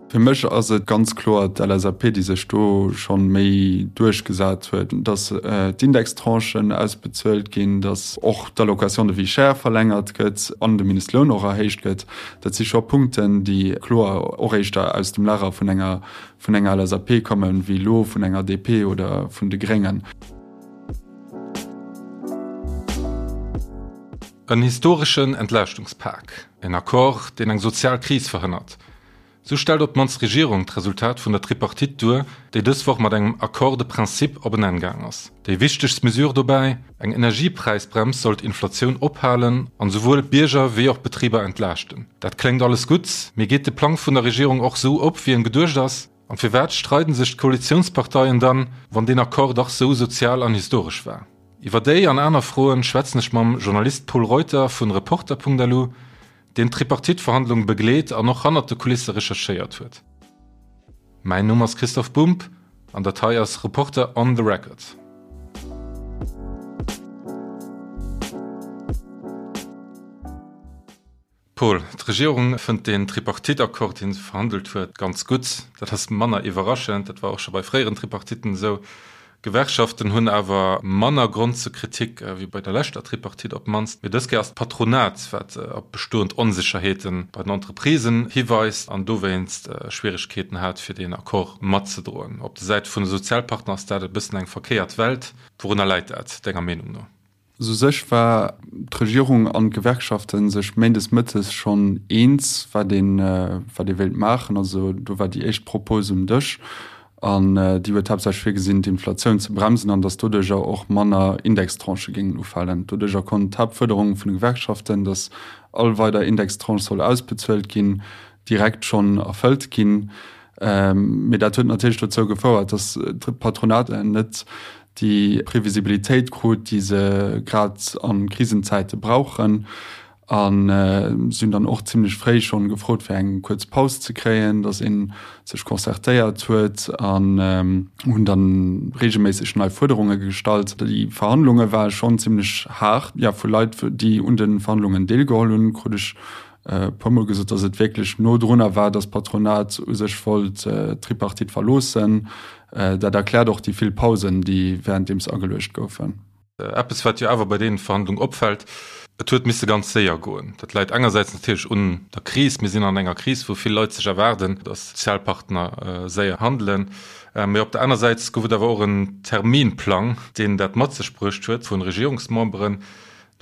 Fir mech ass et ganz kloer d'LSAP, déi sech do schonn méi duerchgesat huet, datt d'Indextranchen ausbezuelt ginn, datt och d'Allocation de vie chère verlängert gëtt an de Mindestloun och erhéicht gëtt. Dat si scho Punkten, déi kloer och éischter aus dem Lager vun enger vun enger LSAP kommen, wéi elo vun enger DP oder vun de Gréngen. En historeschen Entlaaschtungspak, en Accord, deen eng sozial Kris verhënnert. Sou stellt op d'mannst d'Regierung d'Resultat vun der Tripartite duer, déi dës Woch mat engem Accord de principe op en Enn gaang ass. Déi wichtegst Mesure dobäi, Eng Energiepräisbrems soll d'Inflatioun ophalen an esouwuel d'Bierger wéi och d'Betriber entlaaschten. Dat kléngt alles gutt, mee geet de Plang vun der Regierung och sou op, wéi en geduecht ass? An firwat streiden sech d'Koalitiounsparteien dann, wann deen Accord dach sou sozial an historesch war? Iwwer déi an aner Froen schwätzen ech mam Journalist Pol Reuter vun Reporter.lu. deen d'Tripartite-Verhandlung begleet an och hannert de Kulisse recherchéiert huet. Mäin Numm ass Christoph Bumb an dat hei ass Reporter on the Record. Paul, d'Regierung fënnt deen Tripartite-Accord, dee se verhandelt huet, ganz gutt. Dat ass manner iwwerraschend, dat war och scho bei fréieren Tripartitten esou. D'Gewerkschaften hunn awer manner Grond zur Kritik wéi bei der leschter Tripartite op d'mannst. Mee dës Kéier ass d'Patronat, wat op bestoend Onsécherheete bei den Entreprisen hiweist an dowéinst Schwieregkeeten hat, fir deen Accord matzedroen. Op de Säite vun de Sozialpartner ass dat e bëssen eng verkéiert Welt. Wourunner läit dat, denger Meenung no? U sech war d'Regierung an d'Gewerkschafte sech méindes mëttes schonn eens, wat ee wat ee wéilt maachen. Also do war déi éischt Propos um Dësch an déi huet haaptsächlech virgesinn, d'Inflatioun ze bremsen an datt doduercher och manner Indextranchë géingen ufalen. Doduercher konnt d'Haaptfuerderung vun de Gewerkschaften, datt all weider Indextranche soll ausbezuelt ginn, direkt schonn erfëllt ginn. Mee dat huet natierlech dozou gefouert, datt d'Patronat net déi Previsibilitéit krut, déi se grad a Krisenzäite brauchen. A si hunn dann och zimlech fréi schonn gefrot, fir eng kuerz Paus ze kréien, datt ee sech concertéiert huet an hunn da reegelméisseg nei Fuerderunge gestallt. Déi Verhandlunge ware schonn zimlech haart. Jo, vu Leit, déi un de Verhandlungen deelgeholl hunn, krut ech e puer Mol gesot, datt et wierklech no drunner war, datt d'Patronat u sech wollt d'Tripartite verloossen. Dat erkläert och déi vill Pausen, déi wärenddeems ageluecht goufen. Eppes, wat jo awer bei deenen Verhandlungen opfält, Et huet misse ganz séier goen. Dat läit engersäits natierlech un der Kris. Mir sinn an enger Kris, wou vill Leit sech erwaarden, datt d'Sozialpartner séier handelen. Mee op der aner Säit gouf et awer och en Terminplang, deen dat mat sech bruecht huet vu Regierungsmemberen.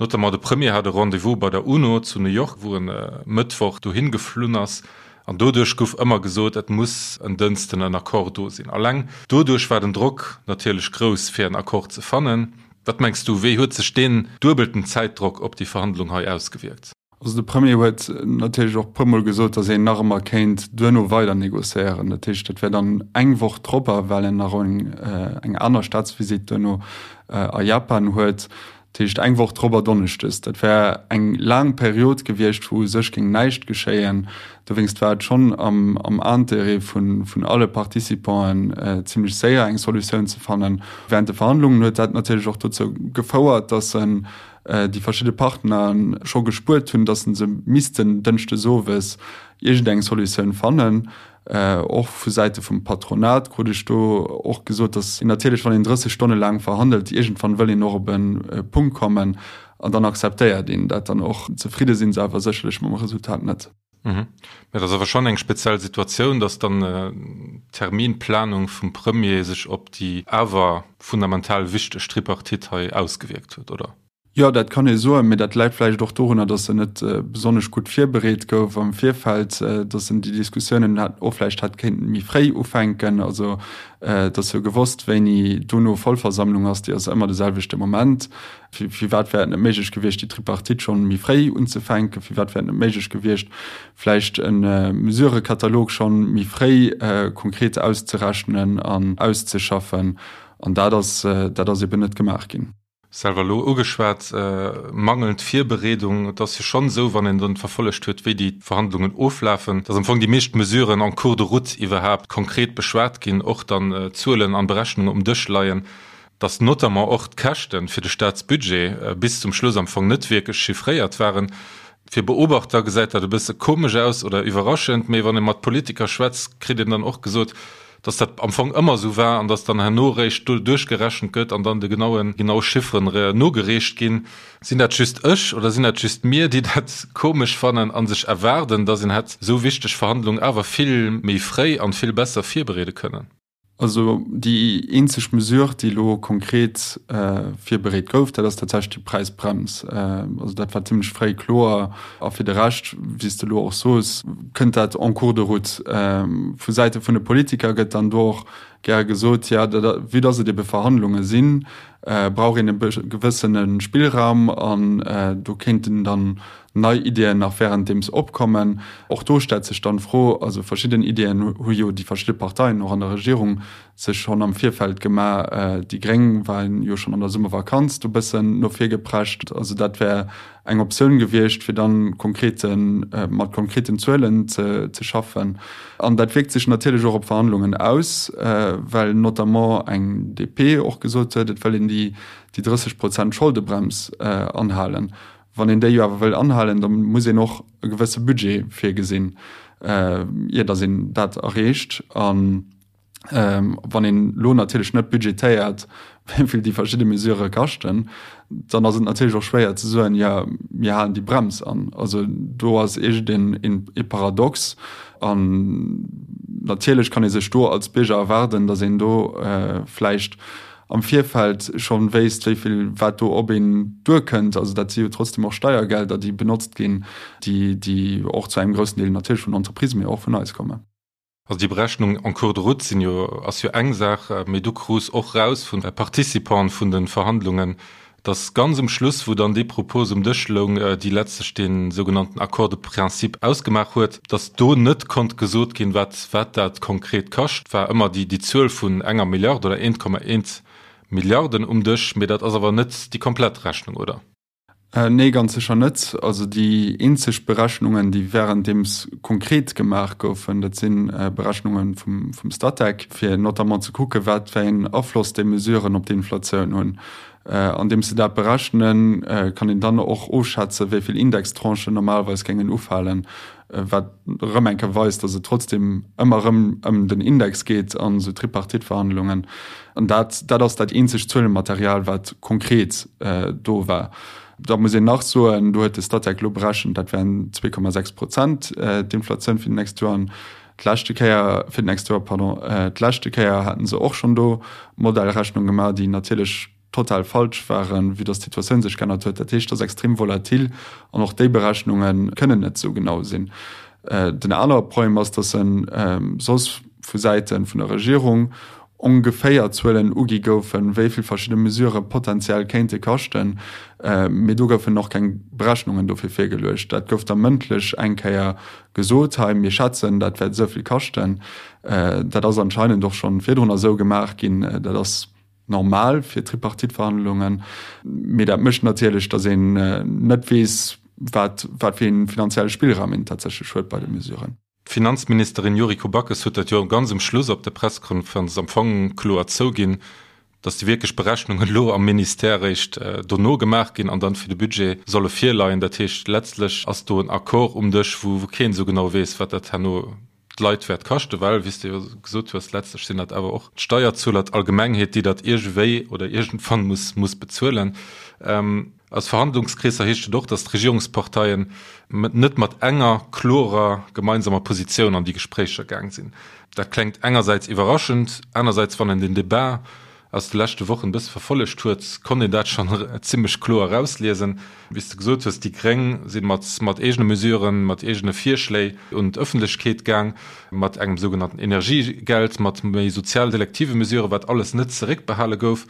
Notamment de Premier hat e Rendez-vous bei der UNO zu New York, wou en Mëttwoch dohin geflunn ass. An doduerch gouf ëmmer gesot, et muss en Dënsten en Accord do sinn. Alleng doduerch war den Drock natierlech grouss, fir en Accord ze fannen. Wat mengs du, wéi huet sech deen duebelten Zäitdrock op déi Verhandlung hei ausgewierkt? Also de Premier huet natierlech och e puermol gesot, datt een nach ëmmer kéint duerno weider negociéieren. Dat heescht, dat wär dann eng Woch dropper, well en nach eng aner Staatsvisitt duerno a Japan huet. Dat heescht eng Woch dropper donneschdes. Dat wär eng laang Period gewiescht, wou u sech géing näischt geschéien. Dowéinst war et schonn am am Interêt vun vun alle Participanten, zimlech séier eng Solutioun ze fannen. Während de Verhandlungen huet dat natierlech och dozou gefouert, datt en déi verschidde Partner scho gespuert hunn, datt se missten dënschdes owes iergendeng Solutioun fannen. Och vu Säite vum Patronat krut ech do och gesot, datt een natierlech, wann een 30 Stonne laang verhandelt, iergendwann wëll een och op e Punkt kommen an dann akzeptéiert een dat dann och. Zefridde si se awer sécherlech mam Resultat net. Mä et ass awer schonn eng speziell Situatioun, datt dann d'Terminplanung vum Premier sech op déi awer fundamental wichteg Tripartite hei ausgewierkt huet, oder? Jo, dat kann ee soen, mee dat läit vläicht och dorunner, datt en net besonnesch gutt virbereet gouf am Virfeld, datt en déi Diskussiounen hätt och vläicht hätt kéinten méi fréi ufänken. Also et ass jo gewosst, wéini d'UNO-Vollversammlung ass, déi ass ëmmer de selwechte Moment. Firwat wär et net méiglech gewiescht, déi Tripartite schonn méi fréi unzefänken? Firwat wär et net méiglech gewiescht, vläicht e Mesurëkatalog schonn méi fréi konkret auszerechnen an auszeschaffen? An dat ass, dat ass eben net gemaach ginn. Selwer elo ugeschwat, mangelnd Virbereedung. Et ass jo schonn esou, wann een dann verfollegt huet, wéi déi Verhandlungen oflafen, dass am Fong déi meescht Mesuren en cours de route iwwerhaapt konkret beschwat ginn, och dann Zuelen an Berechnungen um Dësch leien, dass notamment och d'Käschte fir de Staatsbudget bis zum Schluss am Fong net wierklech chiffréiert waren. Fir Beobachter gesäit dat e bësse komesch aus oder iwwerraschend, mee wann ee mat Politiker schwätzt, kritt een dann och gesot, dass dat am Fong ëmmer esou war an dass dann herno eréischt do duerchgerechent gëtt an dann de genauen, genau Chifferen nogereecht ginn. Sinn dat just ech oder sinn dat just mir, déi dat komesch fannen a sech erwaarden, dass een hätt esou wichteg Verhandlungen awer vill méi fréi an vill besser virbereede kënnen? Also déi eenzeg Mesure, déi elo konkret virbereet gouf, dat ass tatsächlech déi Präisbrems. Also dat war zimlech fréi kloer. A fir de Rescht, wéi s de elo och sos, kënnt dat en cours de route. Vu Säite vun de Politiker gëtt dann do och gäre gesot, jo, vue dass et ebe Verhandlunge sinn, brauch een e gewëssene Spillraum an do kéinten dann nei Ideeën nach währenddeems opkommen. Och do stellt sech dann d'Fro, also verschidden Ideeën hu jo déi verschidde Parteien och an der Regierung sech schonn am Virfeld gemaach. Déi Gréng waren jo schonn an der Summervakanz do bëssen no vir geprescht. Also dat wär eng Optioun gewiescht, fir dann konkrete, mat konkreten Zuelen ze schaffen. An dat wierkt sech natierlech och op Verhandlungen aus, well notamment eng DP och gesot huet, et wëll een déi 30 Prozent Scholdebrems anhalen. Wann een déi jo awer wëll anhalen, da muss een och e gewësse Budget virgesinn, ier datt een dat erreecht. A wann een elo natierlech net budgetéiert, wéi vill déi verschidde Mesurë kaschten, dann ass et natierlech och schwéier ze soen, jo mir halen déi Brems an. Also do ass iergendeen e Paradox. An natierlech kann ee sech do als Bierger erwaarden, datt een do vläicht am Virfeld schonn wéisst, wéi vill wat do op een duerkënnt. Also dat si jo trotzdem och Steiergelder, déi benotzt ginn, déi, déi och zu engem groussen Deel natierlech vun Entreprisë, mee och vun eis kommen. Also déi Berechnung en cours de route sinn jo, ass jo eng Saach, mee du krus och raus vun de Participante vun de Verhandlungen, dass ganz um Schluss, wou dann déi Propos um Dësch loung, déi letztlech dee sougenannten Accord de principe ausgemaach huet, dass do net konnt gesot ginn, wat wat dat konkret kascht. War ëmmer déi déi Zuel vun enger Milliard oder 1,1 Milliarden um Dësch, mee dat ass awer net déi komplett Rechnung, oder? Nee, ganz sécher net. Also déi eenzeg Berechnungen, déi währenddeems konkret gemaach goufen, dat si Berechnunge vum vum Statec, fir notamment ze kucken, wat fir een Afloss déi Mesuren op d'Inflatioun hunn. Andeems se dat berechnen, kann een dann och ofschätzen, wéi vill Indextranchen normalerweis géingen ufalen, wat erëm eng Kéier weist, datt et trotzdem ëmmer erëm ëm den Index geet an esou Tripartite-Verhandlungen. An dat, dat ass dat eenzegt Zuelematerial, wat konkret do war. Da muss een nach soen, do huet de Statec elo berechent, dat wären 2,6 Prozent d'Inflatioun fir déi nächst Joren. D'leschte Kéier, fir d'nächst Joer, pardon, d'leschte Kéier haten se och schonn do Modellrechnung gemaach, déi natierlech total falsch waren, vue dass d'Situatioun sech geännert huet. Dat heescht, et ass extrem volatil an och déi Berechnunge kënnen net esou genau sinn. Den anere Problem ass, dass e soss vu Säite vun der Regierung ongeféier Zuelen ugi goufen, wéi vill verschidde Mesurë potenziell kéinte kaschten, mee do goufen och keng Berechnungen dofir virgeluecht. Dat gouf da mëndlech eng Kéier gesot, hei mir schätzen, dat wäert esou vill kaschten. Dat ass anscheinend och schonn virdrun esou gemaach ginn. Dat ass normal fir Tripartite-Verhandlungen, mee dat mécht natierlech, datt een net weess, wat wat fir ee finanzielle Spillraum een tatsächlech huet bei de Mesuren. D'Finanzministerin Yuriko Backes huet dat jo ganz um Schluss op der Pressekonferenz am Fong kloer zouginn, datt déi wierklech Berechnungen elo am Ministère eréischt dono gemaach ginn an dann fir de Budget solle virleien. Dat heescht, letztlech ass do en Accord um Dësch, wou keen esou genau weess, wat dat herno d'Leit wäert kaschten, well, wéi s de jo gesot hues, letztlech sinn dat awer och d'Steierzueler, d'Allgemengheet, déi dat iergendwéi oder iergendwann muss bezuelen. Aus Verhandlungskreesser heescht et och, datt d'Regierungsparteien net mat enger klorer gemeinsamer Positioun an déi Gespréicher gaang sinn. Dat klengt engersäits iwwerraschend, anersäits, wann een den Debat aus de leschte Wochen e bësse verfollegt huet, konnt een dat schonn zimmlech kloer erausliesen. Wéi s de gesot hues, déi Gréng si mat mat eegene Mesuren, mat eegene Virschléi un d'Ëffentlechkeet gaang, mat engem sougenannten Energiegeld, mat méi sozial selektive Mesuren, wat alles net zeréckbehale gouf.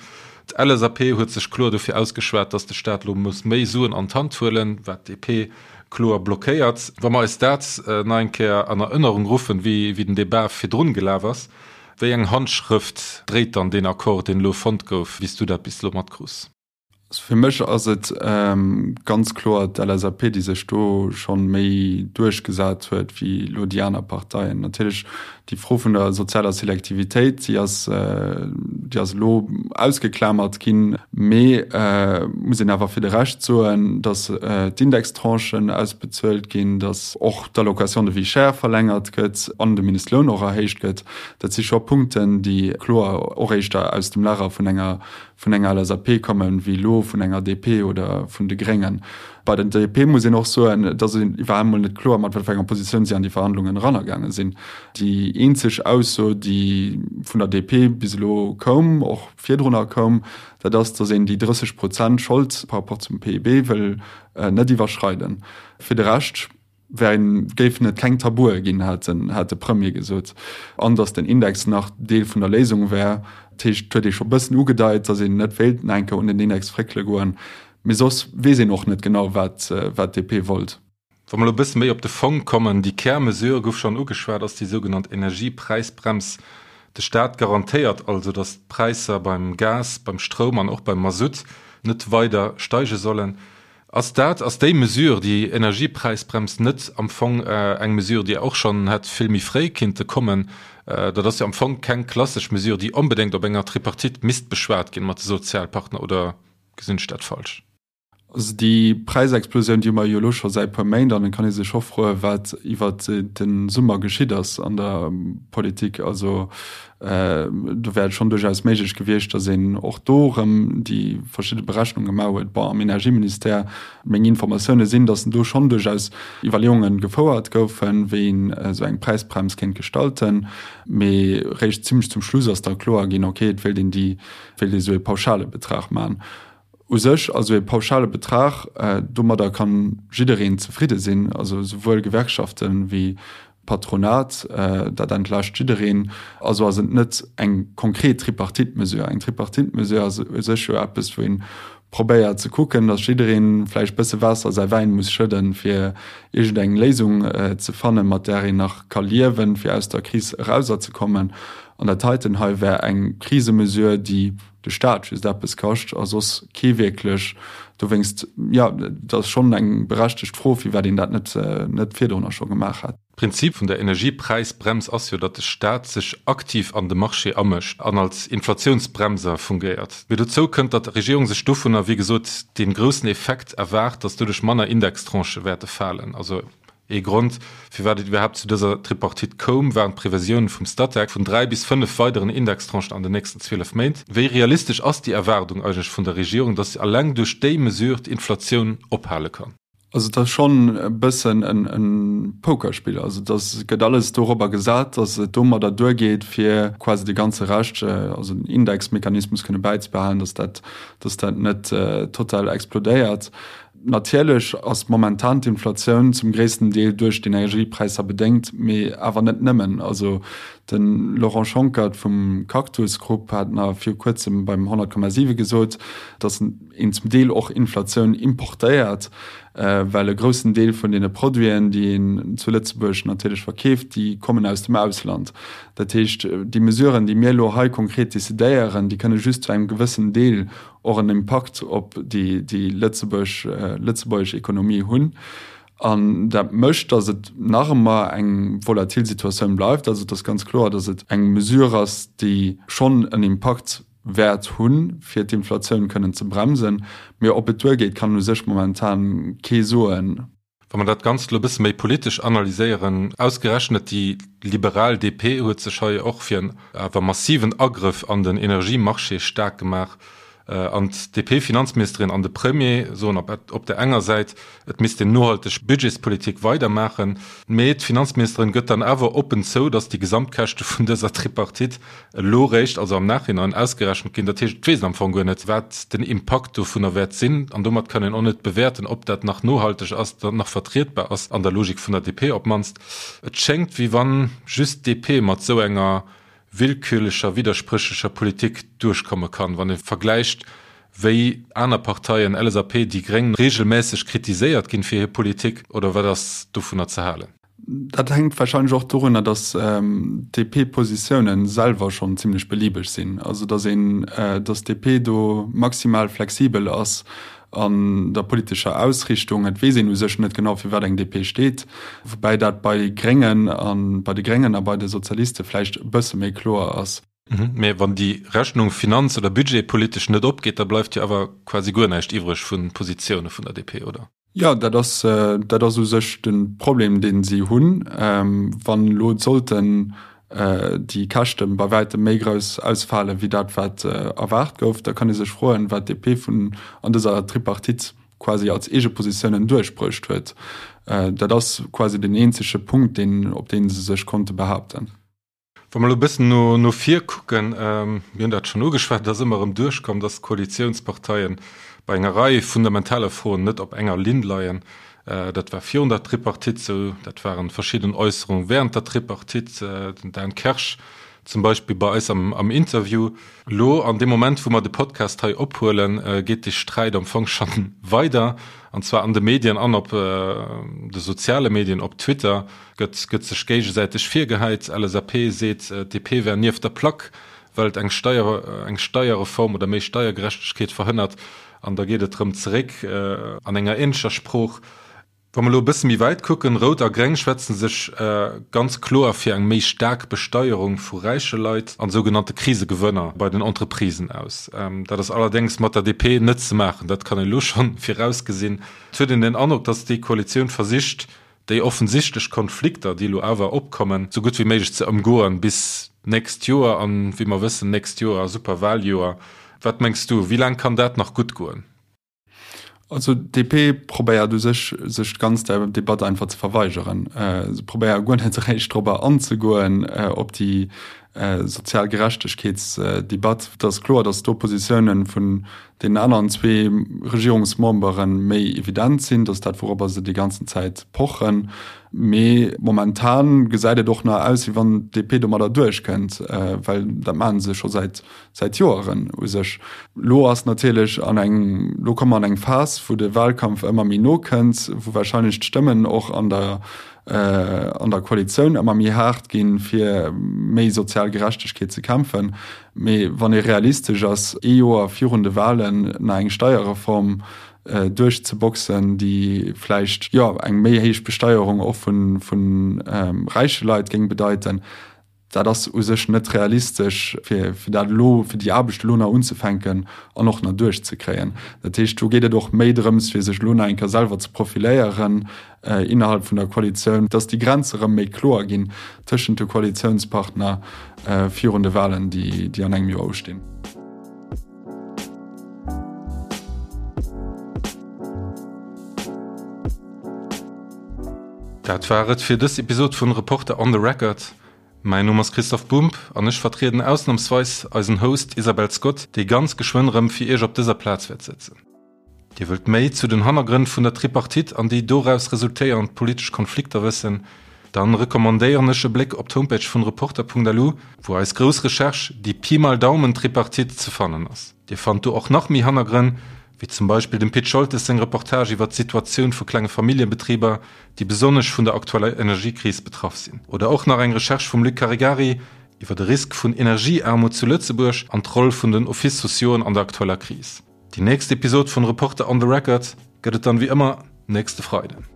D'LSAP huet sech kloer dofir ausgeschwat, datt de Staat elo muss méi Suen an d'Hand huelen, wat d'DP kloer blockéiert. Wa mer eis dat nach eng Kéier an Erënnerung ruffen, wéi den Debat virdrun gelaf ass, wéi eng Handschrëft dréit dann deen Accord, deen elo fonnt gouf, wéi s du dat bis elo matkrus? Also fir mech ass et ganz kloer d'LSAP, déi sech do schonn méi duerchgesat huet wéi elo déi aner Parteien. Natierlech déi Fro vun der sozialer Selektivitéit, déi ass, déi ass elo ausgeklamert ginn, mee muss een awer fir de Rescht soen, datt d'Indextranchen ausbezuelt ginn, datt och d'Allocation de vie chère verlängert gëtt an de Mindestloun och erhéicht gëtt. Dat si scho Punkten, déi kloer och éischter aus dem Lager vun enger vun enger LSAP kommen, wéi elo vun enger DP oder vun de Gréngen. Bei den DP muss een och soen, et ass iwwerhaapt emol net kloer, mat wat fir enger Positioun si an déi Verhandlungen eranagaange sinn. Déi eenzeg Ausso, déi vun der DP bis elo koum, och virdrunner koum, dat ass, datt een déi 30 Prozent Schold par rapport zum PIB wëll net iwwerschreiden. Fir de Rescht Wäin géifen et keng Tabue ginn, hat de Premier gesot, an datt den Index nach Deel vun der Léisung wär. Dat heescht, et huet ee scho bëssen ugedeit, datt een net wéilt nach eng Kéier un den Index fréckele goen. Mee soss weess een och net genau, wat d'DP wollt. Wa mer elo e bësse méi op de Fong kommen, déi Kärmesure gouf schonn ugeschwat, ass déi sougenannt Energiepräisbrems. De Staat garantéiert also, datt d'Präisser beim Gas, beim Stroum an och beim Masutt net weider steige sollen. Ass dat, ass déi Mesure, déi Energiepräisbrems net am Fong eng Mesure, déi och schonn hätt vill méi fréi kinnte kommen? Dat ass jo am Fong keng klassesch Mesure, déi onbedéngt op enger Tripartite misst beschwat ginn mat de Sozialpartner, oder gesinn ech dat falsch? Also déi Präisexplosioun, déi hu mer jo elo scho säit e puer Méint an et kann ee sech scho froen, wat iwwert de Summer geschitt ass an der Politik. Also Do wär et schonn duerchaus méiglech gewiescht, datt een och do erëm déi verschidde Berechnunge gemaach huet. Bon, am Energieministère, meng Informatioune sinn, datt do schonn duerchaus Iwwerleeunge gefouert goufen, wéi een esou eng Präisbrems kéint gestalten. Mee réischt zimlech zum Schluss ass da kloer ginn, okay, et wéilt een déi, wéilt ee sou ee pauschale Betrag maachen. U sech also ee pauschale Betrag, domadder kann jiddereen zefridde sinn, also souwuel Gewerkschafte wéi Patronat, dat entlaascht jiddereen. Also ass et net eng konkret Tripartite-Mesure. Eng Tripartite-Mesure ass u sech jo eppes, wou ee probéiert ze kucken, datt jidderee vläicht bësse Waasser a säi Wäin muss schëdden, fir iergendeng Léisung ze fannen, mat där een nach ka liewen, fir aus der Kris erauserzekommen. An dat heiten hei wär eng Krisemesure, déi de Staat just eppes kascht a soss kee wierklech. Dowéinst, jo, et ass schonn eng berechtegt Fro, firwat een dat net net virdrunner scho gemaach hätt. D'Prinzip vun der Energiepräisbrems ass jo, datt de Staat sech aktiv an de Marché amëscht an als Inflatiounsbremser fungéiert. Mee dozou kënnt, datt d'Regierung sech dovunner, wéi gesot, dee groussen Effekt erwaart, datt doduerch manner Indextranchë wäerte falen. Also Ee Grond, firwat et iwwerhaapt zu dëser Tripartite koum, waren d'Previsiounen vum Statec vun 3 bis 5 weideren Indextranchen an den nächsten 12 Méint. Wéi realistesch ass déi Erwaardung eigentlech vun der Regierung, datt se alleng duerch déi Mesure d'Inflatioun ophale kann? Also et ass schonn e bëssen e Pokerspill. Also et ass, gëtt alles dorobber gesat, datt et domadder duergeet, fir quasi de ganze Rescht, also den Indexmechanismus kënne bäizebehalen, datt dat, datt dat net total explodéiert. Natierlech ass momentan d'Inflatioun zum gréissten Deel duerch d'Energiepräisser bedéngt, mee awer net nëmmen. Also de Laurent Schonckert vum Cactus Group hat nach viru kuerzem beim 100,7 gesot, datt een zum Deel och Inflatioun importéiert, well e groussen Deel vun deene Produiten, déi een zu Lëtzebuerg natierlech verkeeft, déi kommen aus dem Ausland. Dat heescht, déi Mesuren, déi mir elo hei konkret decidéieren, déi kënne just zu engem gewëssen Deel och en Impakt op déi Lëtzebuerg, lëtzebuergesch Ekonomie hunn. An dat mécht, datt et nach ëmmer eng volatil Situatioun bleift. Also et ass ganz kloer, datt et eng Mesure ass, déi schonn en Impakt wäert hunn, fir d'Inflatioun kënnen ze bremsen. Mee ob et duergeet, kann u sech momentan kee soen. Wa mer dat Ganzt elo e bësse méi politesch analyséieren, ausgerechnet déi liberal DP huet sech hei och fir en awer massiven Agrëff an den Energiemarché staark gemaach. An d'DP-Finanzministerin an de Premier soen op op der enger Säit, et misst een nohalteg Budgetspolitik weidermaachen, mee d'Finanzministerin gëtt dann awer oppen zou, datt déi Gesamtkäschte vun dëser Tripartite elo réischt, also am Nachhinein, ausgerechent ginn. Dat heescht, et weess een am Fong guer net, wat den Impakt dovunner wäert sinn. An domat kann een och net bewäerten, ob dat nach nohalteg ass, dat nach vertrietbar ass, an der Logik vun der DP op d'mannst. Et schéngt, wéi wann just d'DP mat esou enger willkürlecher, widderspréchlecher Politik duerchkomme kann, wann ee vergläicht, wéi aner Parteien, LSAP, déi Gréng, reegelmässeg kritiséiert ginn fir hir Politik. Oder wat ass dovunner ze halen? Dat hänkt warscheinlech och dorunner, datt d'DP-Positiounen selwer schonn zimlech beliebeg sinn. Also datt een, datt d'DP do maximal flexibel ass an der politescher Ausrichtung. Et weess een u sech net genau, fir wat eng DP steet, woubäi dat bei Gréngen a bei de Gréngen a bei de Sozialiste vläicht e bësse méi kloer ass. Mä wann déi Rechnung finanz oder budgetpolitesch net opgeet, da bleift jo awer quasi guer näischt iwwreg vu Positioune vun der DP, oder? Jo, dat ass, dat ass u sech de Problem, dee si hunn. Wann elo sollten déi Käschte bei wäitem méi grouss ausfale wéi dat, wat erwaart gouf, da kann ee sech froen, wat d'DP vun an dëser Tripartite quasi als eege Positiounen duerchbruecht huet. Dat ass quasi den eenzege Punkt, deen, op dee se sech konnte behaapten. Wa mer elo e bëssen no, no vir kucken, mir hunn dat schonn ugeschwat, et ass ëmmer erëm duerchkomm, dass d'Koalitiounsparteie bei enger Rei fundamentale Froen net op enger Linn leien. Dat war virun der Tripartite esou, dat waren verschidden Äusserunge während der Tripartite, den Dan Kersch zum Beispill bei eis am, am Interview. Elo an deem Moment, wou mer de Podcast hei ophuelen, geet dee Sträit am Fong schonn weider, an zwar an de Medien an op de soziale Medien, op Twitter gëtt gëtt sech géigesäiteg virgehäit. LSAP seet, d'DP wär nieft der Plack, well et eng Steier, eng Steierreform oder méi Steiergerechtegkeet verhënnert. An da geet et erëm zeréck an enger ähnlecher Sprooch. Wa mer elo e bësse méi wäit kucken, Rout a Gréng schwätze sech ganz kloer fir eng méi staark Besteierung vu räiche Leit an sougenannte Krisegewënner bei den Entreprisen aus. Dat ass allerdéngs mat der DP net ze maachen, dat kann een elo scho virausgesinn. Et huet een den Androck, datt déi Koalitioun versicht, déi offensichtlech Konflikter, déi elo awer opkommen, sou gutt wéi méiglech ze ëmgoen bis d'nächst Joer. An wéi mer wëssen, nächst Joer ass Superwaljoer. Wat mengs du, wéi laang kann dat nach gutt goen? Also d'DP probéiert u sech, sech d'ganz Debatt einfach ze verweigeren. Se probéiert guer net eréischt dorobber anzegoen, op déi sozial Gerechtegkeetsdebatt. Et ass kloer, datt do Positiounen vun deenen aneren zwee Regierungsmembere méi evident sinn, datt dat wourobber se déi ganzen Zäit pochen. Mee momentan gesäit et och nach aus, wéi wann d'DP domadder duerchkënnt, well dat maache se scho säit säit Joeren u sech. Lo ass natierlech an eng, lo komme mer an eng Phas, wou de Wahlkampf ëmmer méi no kënnt, wou wahrscheinlech d'Stëmmen och an der, an der Koalitioun ëmmer méi haart ginn, fir méi sozial Gerechtegkeet ze kämpfen. Mee wann ee realistesch ass, ee Joer virun de Wahlen nach eng Steierreform duerchzeboxen, déi vläicht, jo, eng méi héich Besteierung och vu, vu räiche Leit géing bedeiten, Dat ass u sech net realistesch, fir dat elo, fir déi Aarbecht elo nach unzefänken an och nach duerchzekréien. Dat heescht, do geet et och méi drëms, fir sech elo nach eng Kéier selwer ze profiléieren innerhalb vun der Koalitioun, dass déi Grenze erëm méi kloer ginn tëschent de Koalitiounspartner virun de Wahlen, déi an engem Joer ustinn. Dat war et fir dës Episod vun Reporter on the Record. Mäin Numm ass Christoph Bumb an ech vertrieden ausnamsweis eisen Host Isabel Scott, déi ganz geschwënn rëm fir iech op dëser Plaz wäert sëtzen. Dir wëllt méi zu den Hannergrënn vun der Tripartite an déi doraus resultéierend politesch Konflikter wëssen? Dann recommandéieren ech e Bléck op d'Homepage vun Reporter.lu, wou eis grouss Recherche, déi Pi mal Daumen-Tripartite, ze fannen ass. Dir fannt do och nach méi Hannergrënn, wéi zum Beispill dem Pit Scholtes seng Reportage iwwer d'Situatioun vu klenge Familljebetriber, déi besonnesch vun der aktueller Energiekris betraff sinn. Oder och nach eng Recherche vum Luc Caregari iwwer de Risk vun Energieaarmut zu Lëtzebuerg an d'Roll vun den Offices sociauxen an der aktueller Kris. Déi nächst Episod vun Reporter on the Record gëtt et dann wéi ëmmer nächste Freiden.